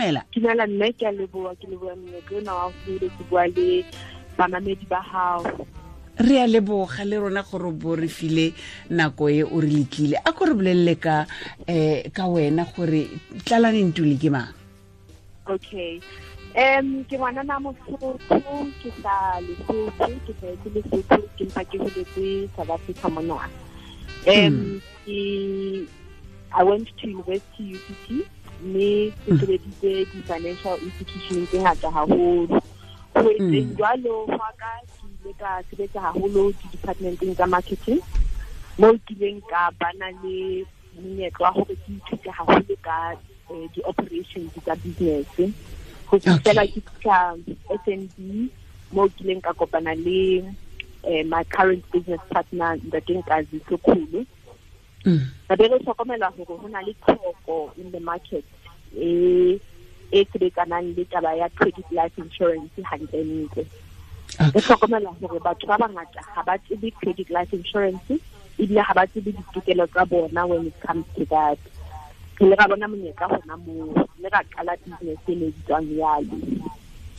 Dumela. Dumela mme, ke a leboha, ke leboha monyetla ona wa hore ke bua le bamamedi ba hao. Re a leboga le rona gore bo re file nako e o re letlile. A ko re bolelele ka ka wena gore Tlalane Ntuli ke mang? Okay. Ke ngwanana Mosotho, ke sa Lesotho, ke hlahetse Lesotho, ke mpa ke holetse South Africa mona. I went to university UCT, mme ke sebeditse di-financial institution tse ngata haholo. Ho etseng jwalo hwa ka, ke ile ka sebetsa haholo di-departmenteng tsa marketing, moo ke ileng ka bana le monyetla wa hore ke ithute haholo ka di-operations tsa business. Ho fihlela ke fihla SNB, moo ke ileng ka kopana le my current business partner, Ntate Nkazi Sokhulu. Re be re hlokomela hore ho na le tlhoko in the market e sebetsanang le taba ya credit life insurance hantlentle. Re hlokomela hore batho ba bangata ha ba tsebe credit life insurance, ebile ha ba tsebe ditokelo tsa bona when it comes to that. Re ile ra bona monyetla hona moo, mme ra qala business e ne bitswang Yalo.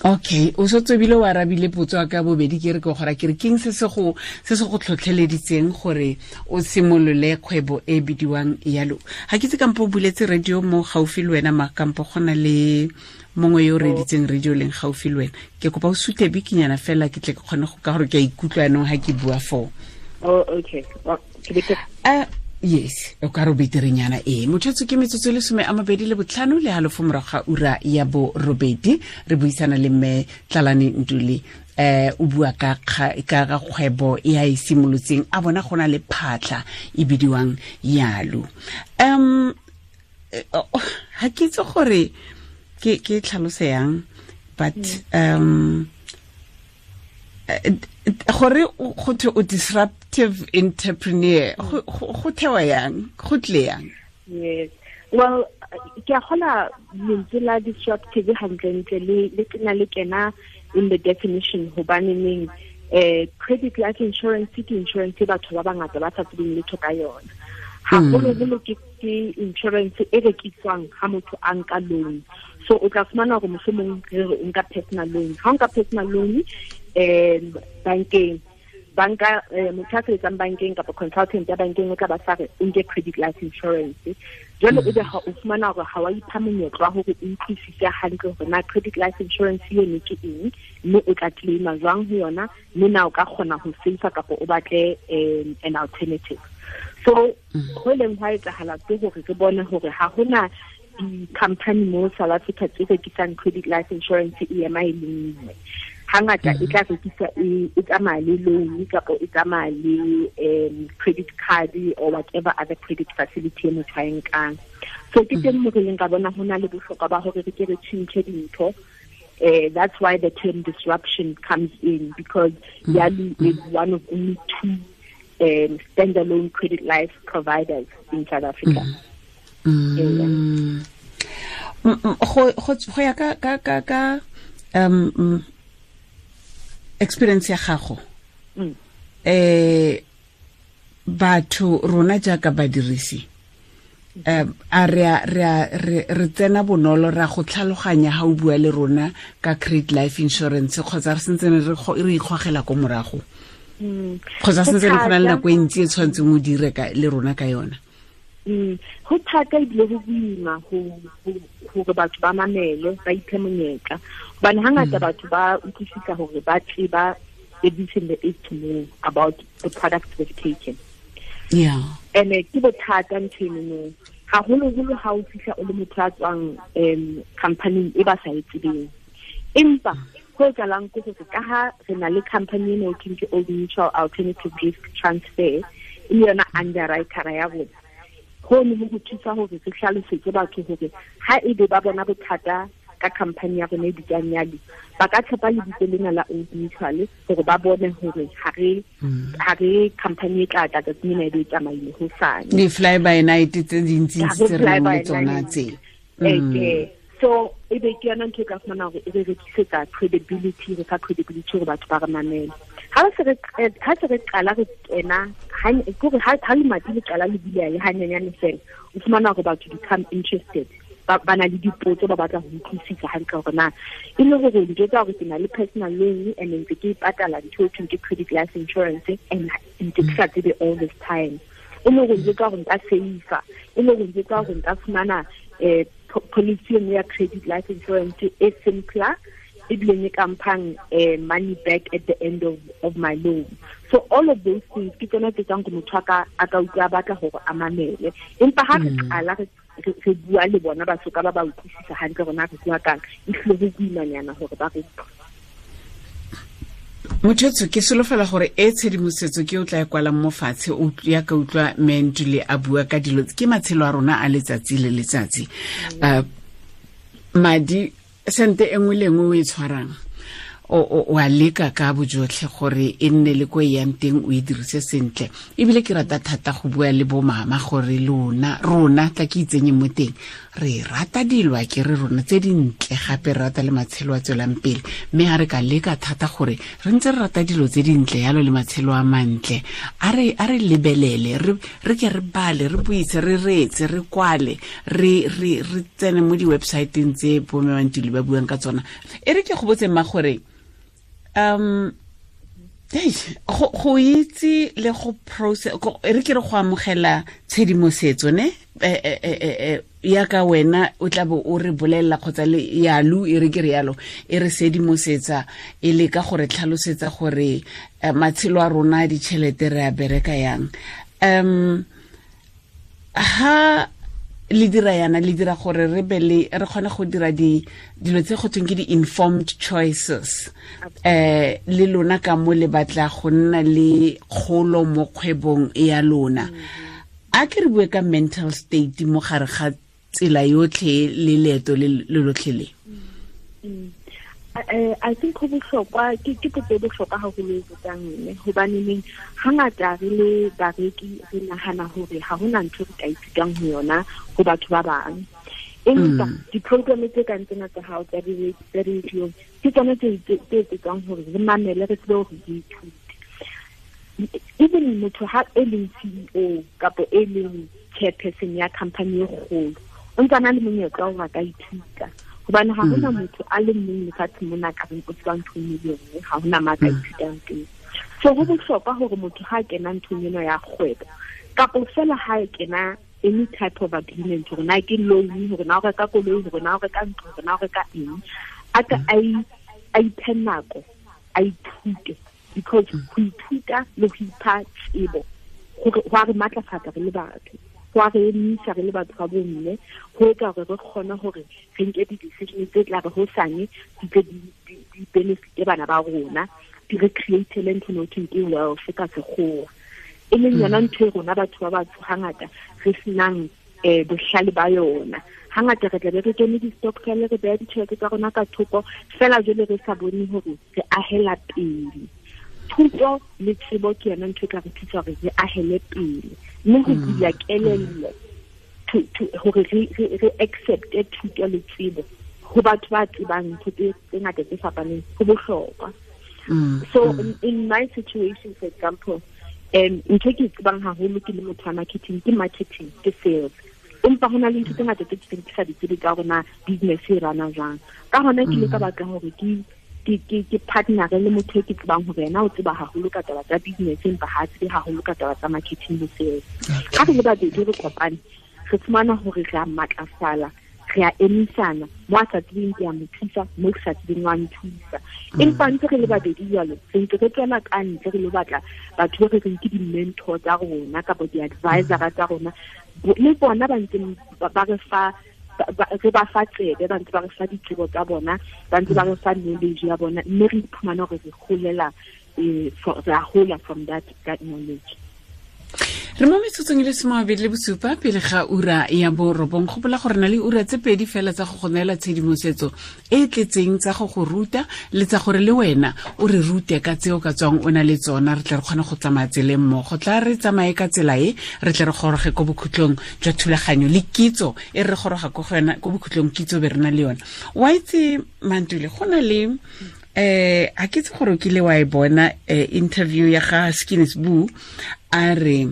Okay, o sotse bile wa arabile potso ya ka bobedi, ke re ke gora ke re keng se se go tlhotlheleditseng gore o simolole kgwebo e bidiwang Yalo. Ha ke tse kampo o buletse radio mo gaufi le wena, ma kampo go na le mongwe yo o reditseng radio leng gaufi le wena. Ke kopa o suthe bikinyana fela ke tle ke kgone go ka gore ke a ikutlwa yanong ha ke bua foo. Oh, okay. Well, ke be Yes, o ka re beterenyana e. Motho ke metsotso le 25 le halofo morago ga ura ya borobedi. Re buisana le mme Tlalane Ntuli, o bua ka ga kgwebo e a e simolotseng, a bona go na le phatlha e bidiwang Yalo. Ha ke itse gore ke tlhalose yang, but gore go thwe o disruptive entrepreneur, go thewa yang, go tle yang? Yes. Well, ke a kgola lentswe la disruptive hantlentle le kena le kena in the definition, hobaneneng credit life insurance ke insurance e batho ba bangata ba sa tsebeng letho ka yona. Haholoholo ke insurance e rekiswang ha motho a nka loan. So o tla fumana hore mohlomong re re o nka personal loan. Ha o nka personal loan bankeng, banka motho a sebetsang bankeng kapa consultant ya bankeng o tla ba sa re o nke credit life insurance. Jwale ebe ha o fumana hore ha wa ipha monyetla wa hore o utlwisise hantle hore na credit life insurance eno ke eng, mme o tla claima jwang ho yona, mme na o ka kgona ho save kapa o batle an alternative. So ho leng hwa etsahala ke hore re bone hore ha hona di-company mo South Africa tse rekisang credit life insurance e ema e le nngwe. Hangata e tla rekisa e tsamaya le loan kapa e tsamaya le credit card or whatever other credit facility e motho a e nkang. So ke teng mo re leng ka bona ho na le bohlokwa ba hore re ke re tjhentjhe dintho. That's why the term disruption comes in, because Yalo is one of only two standalone credit life providers in South Africa. Go ya ka experience ya gago, batho rona jaaka badirisi, a re tsena bonolo ra go tlhaloganya ha o bua le rona ka credit life insurance, kgotsa re sentse re ikgogela ko morago, kgotsa sentse re go na le nako e ntsi e tshwanetseng o dire le rona ka yona? Ho thata ebile ho boima hore batho ba mamele, ba iphe monyetla, hobane hangata batho ba utlwisisa hore ba tseba everything there is to know about the products they've taken. Yeah. And ke bothata ntho eno, haholoholo ha o fihla o le motho a tswang company e ba sa e tsebeng. Empa ho etsahalang ke hore ka ha re na le company eno e ke Old Mutual Alternative Risk Transfer, e le yona underwriter ya rona, ho ne ho thusa hore re hlalosetse batho hore ha ebe ba bona bothata ka company ya rona e bitswang Yalo, ba ka tshepa lebitso lena la Old Mutual hore ba bone hore ha re company e tla tla tsatsi lena e be e tsamaile hosane. Di-fly by night tse dintsi tse re nang le tsona tse. So e be ke yona ntho e ka fumana hore e re rekisetsa credibility, re fa credibility hore batho ba re mamele. Ha se re qala re kena, ha lemati le qala le buleha le hanyenyane fela, o fumana hore batho become interested. ba na le dipotso ba batla ho utlwisisa hantle hore na e le hore ntho tsa hore ke na le personal loan and ntse ke patala ntho e thweng ke credit life insurance and ntse ke sa tsebe all this time. E le hore ntse ka hore nka save-a, e le hore ntse ka hore nka fumana policy e ya credit life insurance e simpler, ebile e ka mphang money back at the end of my loan. So all of those things ke tsona tse tsang go motho a ka utlwa batla hore a mamele. Empa ha re qala re bua le bona ba soka ba ba utlwisisa hantle rona re bua kang, e hlile ho boimanyana hore ba re. Motho ke solofela gore e tshedimosetso ke o tla e kwalang mo fatshe o ya ka utlwa Mentule a bua ka dilo ke matshelo a rona a letsatsi le letsatsi. Madi sente e nngwe le nngwe o e tshwarang o a leka ka bojotlhe gore e nne le ko e yang teng o e dirise sentle. Ebile ke rata thata go bua le bo mama gore lona rona tla ke itsenye mo teng, re rata dilo a ke re rona tse dintle, gape re rata le matshelo a tswelang pele, mme ha re ka leka thata gore re ntse re rata dilo tse dintle yalo le matshelo a mantle, a re lebelele, re ke re bale, re buise, re reetse, re kwale, re tsene mo di-websiteng tse bo Mme Mantuli ba buang ka tsona. E re ke go botse mma gore go itse le go process, re ke re go amogela tshedimosetso ne ya ka wena o tla bo o re bolelela kgotsa le yalu e re ke re yalo e re sedimosetsa e le ka gore tlhalosetsa gore matshelo a rona ditšhelete re a bereka yang. Ha le dira yana le dira gore re be le re kgone go dira dilo tse go thweng ke di-informed choices, le lona ka mo le batla go nna le kgolo mo kgwebong ya lona. A ke re bue ka mental state mo gare ga tsela yotlhe le leeto le lotlhe le. I think go bohlokwa ke potso e bohlokwa haholo e botsang mme, hobaneneng hangata re le bareki re nahana hore ha hona ntho re ka ithutang ho yona ho batho ba bang. Empa di-program tse kang tsena tsa hao tsa radio ke tsona tse etsang hore re mamele, re tsebe hore re ithute. Even motho ha e leng CEO kapa e leng chairperson ya company e kgolo, o ntse a na le monyetla wa hore a ka ithuta. Hobane ha hona motho a le mong lefatsheng mona ka reng o tseba ntho e le nngwe, ha hona ma ka ithutang teng. So ho bohlokwa hore motho ha kena nthong ena ya kgwebo kapa fela ha kena any type of agreement, hore na ke loan, hore na o reka koloi, hore na o reka ntlo, hore na o reka eng, a ka a iphe nako, a ithute, because ho ithuta le ho ipha tsebo go a re matlafatsa re le batho, go a re emisa re le batho ba bomme, go etsa hore re kgone hore re nke di-decision tse tla re hosane di tle di benefite bana ba rona, di re create-ele ntho e thweng ke wealth ka sekgowa, e leng yona ntho e rona batho ba batsho hangata re senang bohlale ba yona. Hangata re tlabe re kene di-stokvel, re beha ditjhelete tsa rona ka thoko fela, jwale re sa bone hore re ahela pele. Thuto le tsebo ke yona ntho e tla re thusa hore re ahele pele, mme ho bula kelello hore re accept-e thuto le tsebo ho batho ba tsebang ntho tse ngata tse fapaneng ho bohlokwa. So in my situation, for example, ntho e ke tsebang haholo ke le motho wa marketing ke marketing, ke sales. Empa hona le ntho tse ngata tse ke sa di tsebe ka hore na business e rana jwang. Ka hona ke ile ka batla hore ke partner le motho e ke tsebang hore yena o tseba haholo ka taba tsa business, empa ha tsebe haholo ka taba tsa marketing le sales. Ha re le babedi re kopane, re fumana hore re a matlafala, re a emisana, mo a sa tsebeng ke a mo thusa, mo ke sa tsebeng wa nthusa. Empa ntse re le babedi jwalo, re ntse re tswela ka ntle re lo batla batho ba re reng ke di-mentor tsa rona kapa di-advisor tsa rona, le bona ba ntse ba re fa re ba fa tsebe, ba ntse ba re fa ditsebo tsa bona, ba ntse ba re fa knowledge ya bona, mme re iphumana hore re holela, re a hola from that knowledge. Re mo metsotsong e le 27 pele ga ura ya borobong. Gopola gore na le ura tse pedi fela tsa go go neela tshedimosetso e tletseng tsa go go ruta le tsa gore le wena o re rute ka tseo ka tswang o na le tsona, re tle re kgone go tsamaya tseleng mmogo. Tla re tsamaye ka tsela e, re tle re goroge ko bokhutlong jwa thulaganyo le kitso e re goroga ko go yona ko bokhutlong, kitso be re na le yona. Wa itse Mantule, go na le a ke itse gore o kile wa e bona interview ya ga Skinny Sbu, a re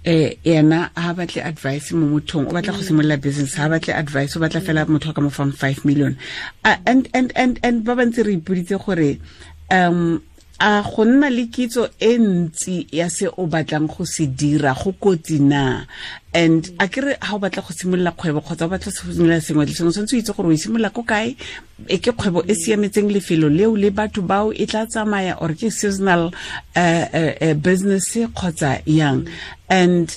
Ena ha batle advice mo mothong, o batla go simolola business, ha batle advice, o batla fela motho ka mo fang 5 million. And ba bantse re ipoditse gore a go nna le kitso e ntsi ya se o batlang go se dira go kotsi na? And a kere ha o batla go simolola kgwebo kgotsa o batla go simolola sengwe le sengwe, tshwanetse o itse gore o simolola ko kae, e ke kgwebo e siametseng lefelo leo le batho bao e tla tsamaya, or ke seasonal business kgotsa yang. And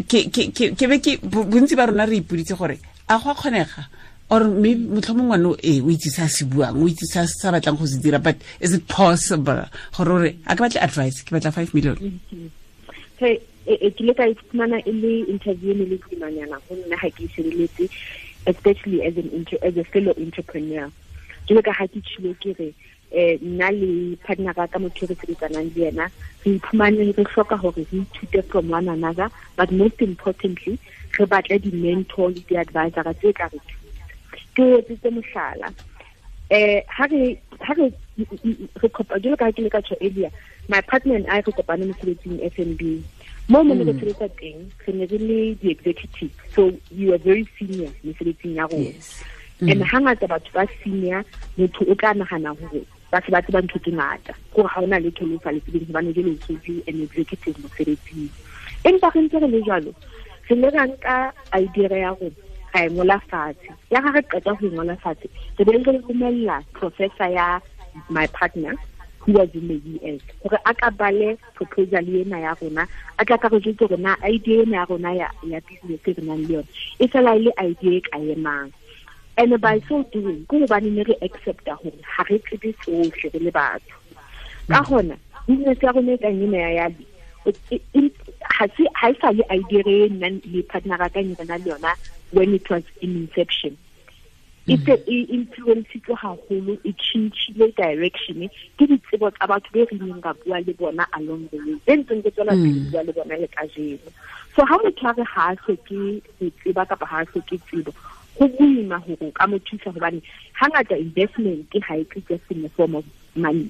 ke be ke bontsi ba rona re ipoditse gore a go a kgonega, or maybe motlhomong ngwana o itse sa se buang, o itse sa batlang go se dira, but is it possible gore a ke batle advice, ke batla 5 million? Hey, ke le ka iphumana e le interview ne le boimanyana go nna ga ke shebeletse, especially as a fellow entrepreneur. Ke le ka ga ke tshilo ke re nna le partner ka motho re sebetsanang le yena, re iphumane re hloka hore re ithute from one another, but most importantly re batle di-mentor le di-advisor tse ka re thusa. Ke etsitse mohlala, ha re kopa jalo ka ke le ka tjho earlier, my partner and I re kopane mosebetsing FNB. Mo mo re sebetsa teng, re ne re le di-executive, so you are very senior mosebetsing ya rona. And hangata batho ba senior, motho o tla nahana hore ba se ba tseba ntho tse ngata, gore ha ona letho le sa le tsebeng hobane jwale o setse an executive mosebetsing. Empa re ntse re le jwalo, re ne ra nka idea ya rona, ra e ngola fatshe. Ya ga re qeta ho ngola fatshe, re be re romella professor ya my partner who was in the US gore a ka bale proposal ena ya rona, a tla ka re jwetse hore na idea ena ya rona ya business e re nang le yona e fela e le idea e ka emang. And by so doing, ke hobane ne re accepta hore ha re tsebe tsohle re le batho. Ka hona business ya rona e kang ena ya Yali, ha e sa le idea e nna le partner ka e re nang le yona when it was in inception. E influencitswe haholo, e tjhentjhile direction ke ditsebo tsa batho be re neng ra bua le bona along the way, be ntseng re tswela pele bua le bona le kajeno. So ha motho a re ha a hloke ho tseba kapa ha a hloke tsebo, go boima hore o ka mo thusa hobane hangata investment ha e tle just in the form of money.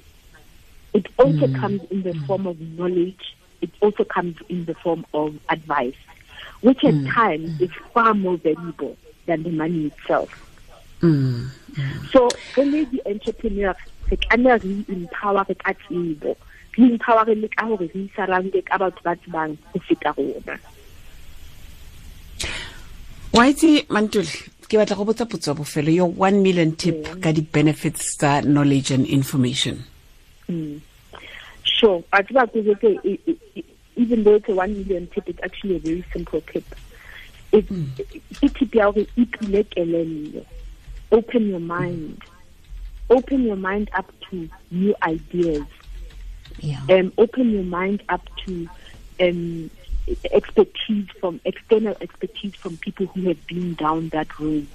It also comes in the form of knowledge. It also comes in the form of advice, which at times is far more valuable than the money itself. So re le entrepreneur, re tlameha re empower re ka tsebo, re empower le ka hore re surround ka batho ba tsebang ho feta rona. Wa itse Mantuli, ke batla go botsa potso ya bofelo, your 1 million tip ka di-benefits tsa knowledge and information. Sure. Even though it's a 1 million tip, it's actually a very simple tip. It's tip ya hore ipule kelello. Open your mind. Open your mind up to new ideas. Yeah. Open your mind up to expertise from external expertise from people who have been down that road.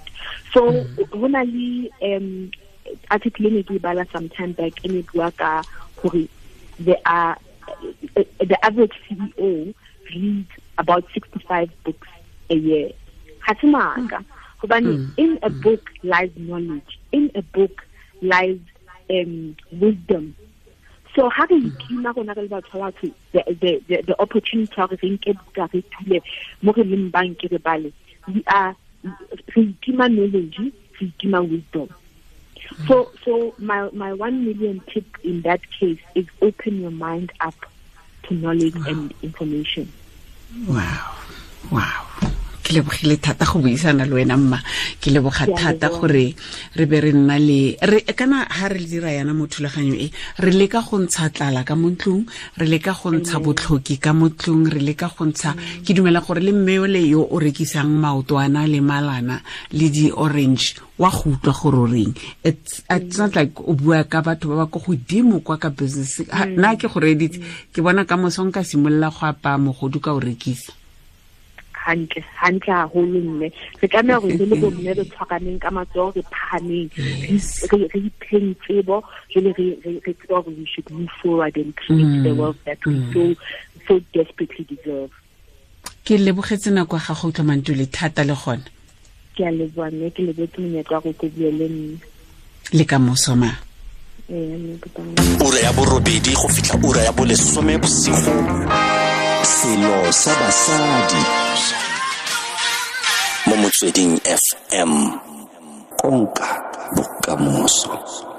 So when I article ne ke bala some time back in bua ka hore there are the average CEO reads about 65 books a year. Ha se maka. Hobane in a book lies knowledge. In a book lies wisdom. So how do you itima rona re le batho ba batho the opportunity ya hore re nke buka re thule mo re leng bang ke re bale, we are re itima knowledge, re itima wisdom. So my 1 million tip in that case is open your mind up to knowledge and information. Wow. Wow. Ke lebogile thata go buisana le wena mma, ke leboga thata gore re be re nna le re kana ha re dira yana mo thulaganyo e, re leka go ntsha tlala ka mo ntlong, re leka go ntsha botlhoki ka mo ntlong, re leka go ntsha, ke dumela gore le mme ole yo o rekisang maotwana le malana le di orange wa go utlwa gore o reng. It's not like o bua ka batho ba ba ko godimo kwa ka business. Nna ke go reditse, ke bona ka moso nka simolola go apaya mogodu ka o rekisa. Hantle hantle haholo mme re tlameha hore re le bomme re tshwaraneng ka matsoho, re phahameng, re ipheng tsebo, jwale re tseba hore we should move forward and create the wealth that we so desperately deserve. Ke lebogetse nako ya gago utlwa Mantuli thata le gona. Ke a leboha mme, ke lebogetse monyetla wa go bua le nna. Le ka moso ma. Ura ya 8 go fitlha ura ya 10 bosigo. Selo sa basadi mo Motsweding FM, konka bokamoso.